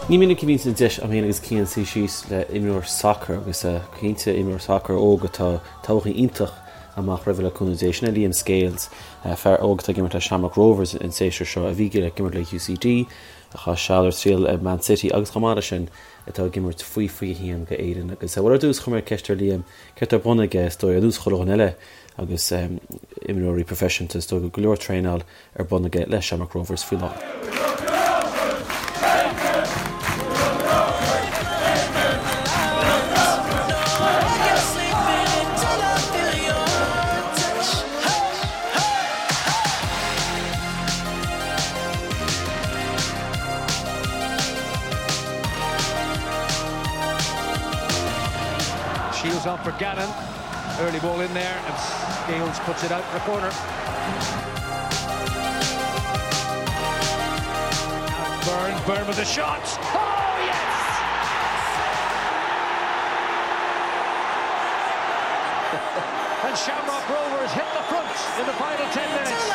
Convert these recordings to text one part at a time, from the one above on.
Ní minic a bhíonns an deis agam féin agus Cian suí síos le imreoir sacair agus cinnte imreoir sacair óg atá todhchaí iontach amach roimhe le cúnamh Dé. Sin é Liam Scales, fear óg atá ag imirt le Shamrock Rovers an séasúr seo, a bhí ag imirt le UCD, a chaith seal ar triail ag Man City agus chomh maith leis sin atá ag imirt faoi 21 go Éirinn. Agus bhuel ar dtús chuir mé ceist ar Liam céard atá ar bun aige is dóigh ar nós chuile dhuine eile agus imreoirí proifisiúnta is dóigh go leor traenáil ar bun aige le Shamrock Rovers faoi láthair. Shields on for Gannon. Early ball in there and Scales puts it out for a corner. Byrne, Byrne with the shot. Oh yes! and Shamrock Rovers hit the front in the final 10 minutes.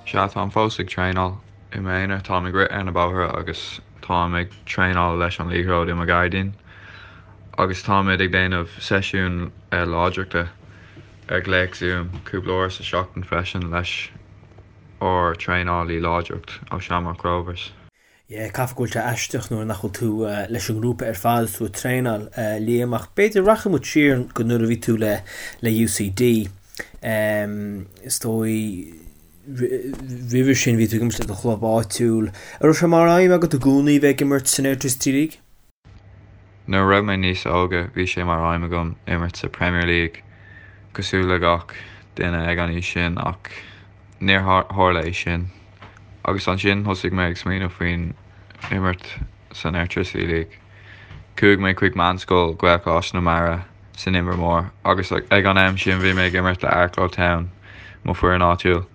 Sea, táim fós ag traenáil i m'aonar, táim ag rith ar na bóithre agus táim ag traenáil leis an liathróid i mo ghairdín. Agus táimid ag déanamh seisiún láidreachta ar ghléas Zoom cúpla uair sa seachtain freisin leis ár traenálaí láidreacht ó Shamrock Rovers. Yeah, caithfidh go bhfuil sé aisteach nuair nach bhfuil tú leis an ngrúpa ar fad is tú ag traenáil, Liam, ach b'fhéidir rachaidh muid siar go nuair a bhí tú le le UCD. Is dóigh roimhe sin bhí tú ag imirt le do chlub áitiúil. An raibh sé mar aidhm agat i gcónaí bheith ag imirt san Airtricity League? Nuair a raibh mé níos óige bhí sé mar aidhm agam imirt sa Premier League cosúil le gach duine ag an aois sin ach níor tharla é sin. Agus ansin thosaigh mé ag smaoineamh faoin imirt san Airtricity League. Chuaigh mé chuig meánscoil Ghaelcholáiste na Mara san Inbhear Mór agus ag an am sin bhí mé ag imirt le Arklow Town, mo foireann áitiúil.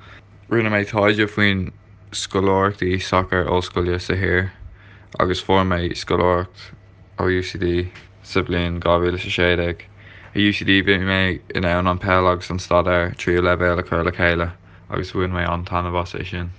Rinne mé taighde faoin scoláireachtaí sacair ollscoile sa thír agus fuair mé scoláireacht ó UCD sa bhliain 2016. I UCD bhí mé in ann an peil agus an staidéar tríú leibhéal a chur le chéile agus bhain mé an-taitneamh as é sin.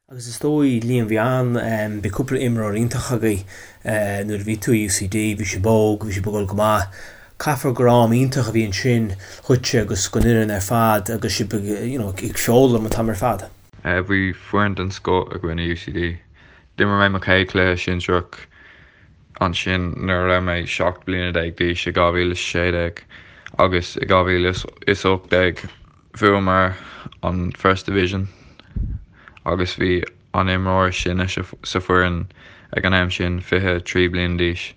Agus is dóigh, Liam, bhí an, bhí cúpla imreoir iontach agaibh nuair a bhí tú i UCD, bhí sibh óg, bhí sibh ag dul go maith. Caithfear gur am iontach a bhí ansin dhuitse agus don fhoireann ar fad agus sibh ag, you know, ag foghlaim an t-am ar fad. Bhí foireann den scoth againn i UCD. D'imir mé mo chéad chluiche sinsearach ansin nuair a raibh mé 17 bliana d'aois i 2016 agus i 2018 bhuamar an First Division agus bhí an imreoir is sine sa foireann ag an am sin 23 bliana d'aois.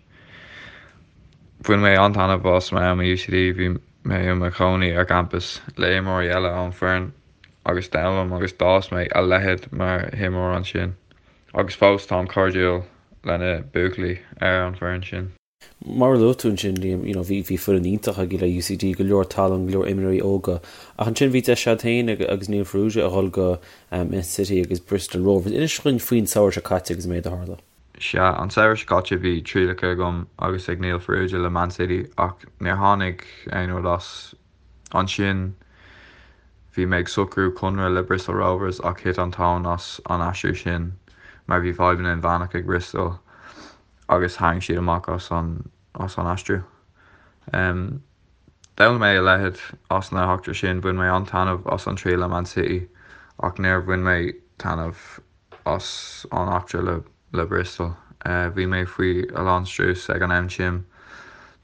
Bhain mé an-taitneamh as m'am i UCD, bhí mé i mo chónaí ar campas le imreoirí eile ón foireann agus d'fhoghlaim agus d'fhás mé a leithéid mar imreoir ansin agus fós táim cairdiúil le na buachaillí ar an bhfoireann sin. Mar a luaigh tú ansin, Liam, you know, bhí, bhí foireann iontach agaibh le UCD, go leor tallann, go leor imreoirí óga, ach ansin bhí deis agat féin agus Neil Farrugia a dhul go Man City agus Bristol Rovers. Inis dhúinn faoin samhradh seo caite agus an méid a tharla. Sea, an samhradh seo caite bhí trialacha agam agus ag Neil Farrugia le Man City ach níor tháinig aon rud as. Ansin bhí mé ag socrú conradh le Bristol Rovers ach thit an tóin as an aistriú sin mar bhí fadhbanna inmheánach ag Bristol agus tharraing siad amach as an as an aistriú. D'fhoghlaim mé a leithéid as na heachtra sin, bhain mé an-taitneamh as an triail le Man City ach níor bhain mé taitneamh as an eachtra le le Bristol. Bhí mé faoi a lán strús ag an am sin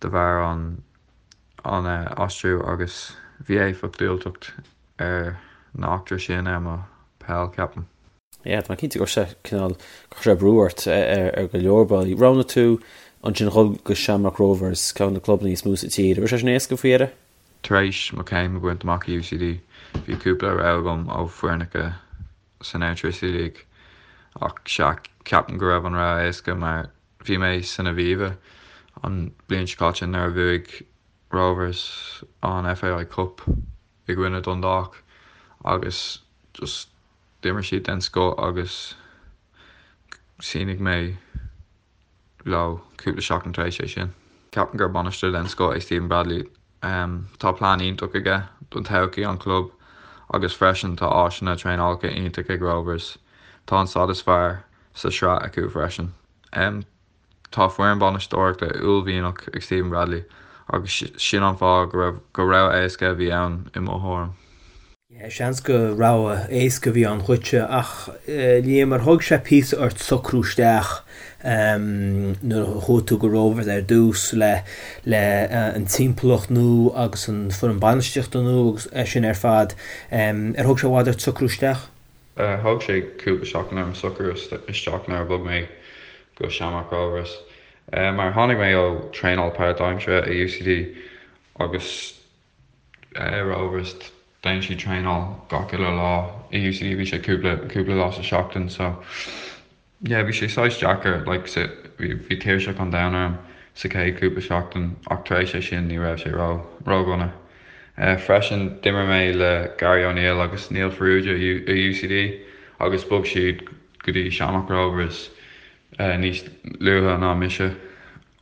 de bharr an an aistriú agus bhí éifeacht diúltach ar na eachtra sin ar mo peil, ceapaim. Yeah, tá mé cinnte go raibh sé cineál, chuir sé brú ort ar go leor bealaí. Roghnaigh tú ansin dhul go Shamrock Rovers, ceann de na clubanna is mó sa tír. An raibh sé sin éasca faoi dheireadh? Tar éis mo chéim a bhaint amach i UCD, bhí cúpla rogha agam ó foirneacha san Airtricity League ach sea, ceapaim go raibh an rogha éasca mar Bhí mé san Aviva an bhliain seo caite nuair a bhuaigh Rovers an FAI Cup i gcoinne Dundalk agus just d'imir siad den scoth agus shínigh mé leo cúpla seachtain tar éis é sin. Ceapaim gur bainisteoir den scoth é Stephen Bradley. Tá plean iontach aige don todhchaí an chlub agus freisin tá áiseanna traenálacha iontach ag Rovers. Tá an staid is fearr. sa sraith acu freisin. Tá foireann bainisteoireachta uaillmhianach ag Stephen Bradley agus sin an fáth go raibh gur rogha éasca a bhí ann i mo thuairim. Seans gur rogha éasca a bhí ann dhuitse ach Liam ar thóg sé píosa ort socrú isteach nuair a chuaigh tú go Rovers ar dtús le le an timpeallacht nua agus an foireann bainistíochta nua agus é sin ar fad ar thóg sé i bhfad ort socrú isteach? Thóg sé cúpla seachtain orm socrú isteach nuair a bhog mé go Shamrock Rovers mar tháinig mé ó traenáil páirtaimseartha i UCD agus Rovers déanann siad traenáil gach uile lá i UCD bhí sé cúpla cúpla lá sa seachtain so yeah bhí sé saghas deacair like sa bhí bhí tuirseach an domhain orm sa chéad cúpla seachtain ach tar éis é sin ní raibh sé ró ródhona. Freisin d'imir mé le Gary O'Neill agus Neil Farrugia i UCD agus bhog siad go dtí Shamrock Rovers níos luaithe ná mise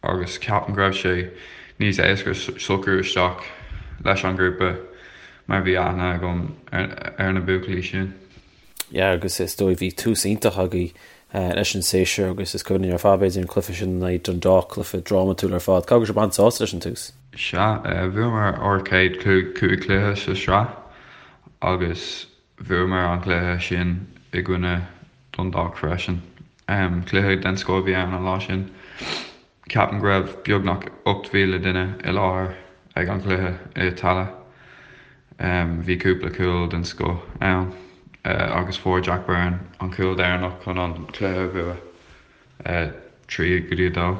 agus ceapaim go raibh sé níos éasca socrú isteach leis an ghrúpa mar bhí aithne agam ar na buachaillí sin. Yeah agus is dóigh bhí tús iontach agaibh leis an séasúr agus is cuimhin linn ar fad b'fhéidir an cluiche sin in aghaidh Dundalk, cluiche drámatúil ar fad. Caithfidh go raibh sibh an-sásta leis an tús? Sea, bhuamar ár chéad chúig chluiche sa sraith agus bhuamar an cluiche sin i gcoinne Dundalk freisin. Cluiche den scoth a bhí ann an lá sin. Ceapaim go raibh beagnach 8,000 duine i láthair ag an chluiche i Tallaght. Bhí cúpla cúl den scoth ann agus fuair Jack Byrne an cúl deireanach chun an cluiche a bhua, 3 go dtí 2.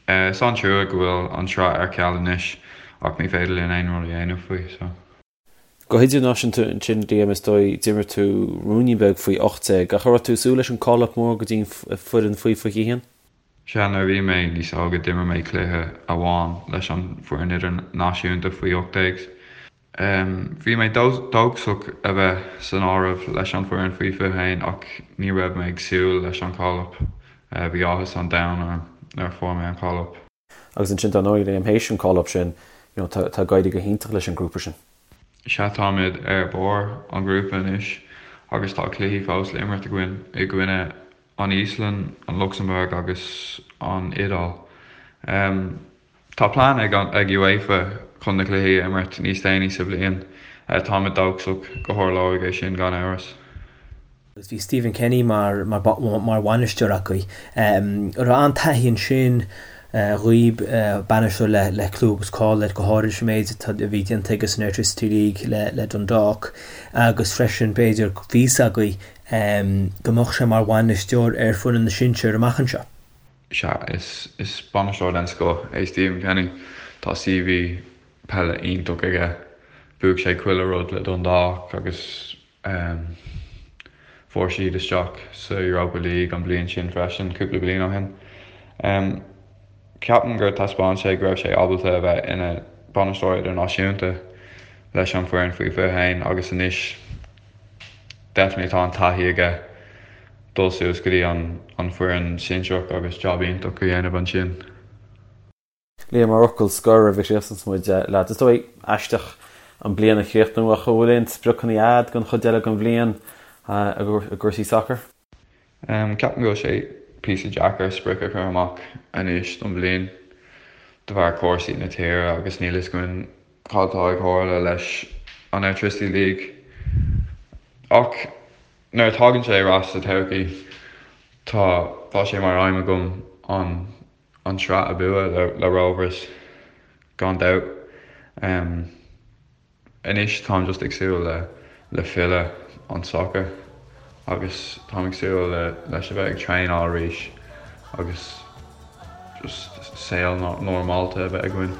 Is an-trua go bhfuil an tsraith ar ceal anois ach ní féidir linn aon rud a dhéanamh faoi so. Go hidirnáisiúnta ansin, Liam, is dóigh, d'imir tú ruainnín beag faoi 18, ach an raibh tú ag súil leis an call-up mór go dtí an foireann faoi 21? Sea, nuair a bhí mé níos óige d'imir mé cluiche amháin leis an bhfoireann idirnáisiúnta faoi 18. Bhí mé dóchasach a bheith san áireamh leis an bhfoireann faoi 21 ach ní raibh mé ag súil leis an call-up. Bhí áthas an domhain orm nuair a fuair mé an call-up. Agus ansin dar ndóigh, Liam, théis an call-up sin, you know, tá tá ag éirí go hiontach leis an grúpa sin. Sea, táimid ar barr an ghrúpa anois agus tá cluichí fós le imirt againn i gcoinne an Íoslainn, an Lucsamburg agus an Iodáil. Tá plean ag ag UEFA chun na cluichí a imirt níos déanaí sa bhliain. Táimid dóchasach go tharlóidh é sin gan amhras. Agus bhí Stephen Kenny mar mar bhainisteoir acu. An raibh an-taithí ansin dhaoib, bainisteoir le le clú agus cáil air, go háirid leis an méid atá a bhí déanta aige san Airtricity League le le Dundalk agus freisin b'fhéidir bhí fhios agaibh go mbeadh sé mar bhainisteoir ar foireann na sinsear amach anseo. Sea, is is bainisteoir den scoth é Stephen Kenny. Tá CV peile iontach aige. Bhuaigh sé chuile rud le Dundalk agus Fuair siad isteach sa Europa League an bhliain sin freisin, cúpla bliain ó shin. Ceapaim gur taispeáin sé go raibh sé ábalta a bheith ina bhainisteoir idirnáisiúnta leis an bhfoireann faoi 21 agus anois definitely tá an taithí aige dul suas go dtí an foireann sinsearach agus job iontach a dhéanamh ansin. Liam, mar fhocal scoir roimh a chríochnaíonns muid leat, is dóigh, aisteach an bliain a chríochnú ach an bhfuil aon spriocanna a'd don chuid eile den bhliain i gcúrsaí sacair? Ceapaim go bhfuil sé píosa deacair sprioc a chur amach anois don bhliain de bharr cúrsaí na tíre agus níl fhios againn cad atá ag tharla leis an Airtricity League. Ach nuair a tagann sé ar ais sa todhchaí tá tá sé mar aidhm agam an an tsraith a bhua le Rovers gan dabht. Anois táim just ag súil le le filleadh an soccer agus táim ag súil le leis a bheith ag traenáil arís agus just saol normálta a bheith againn.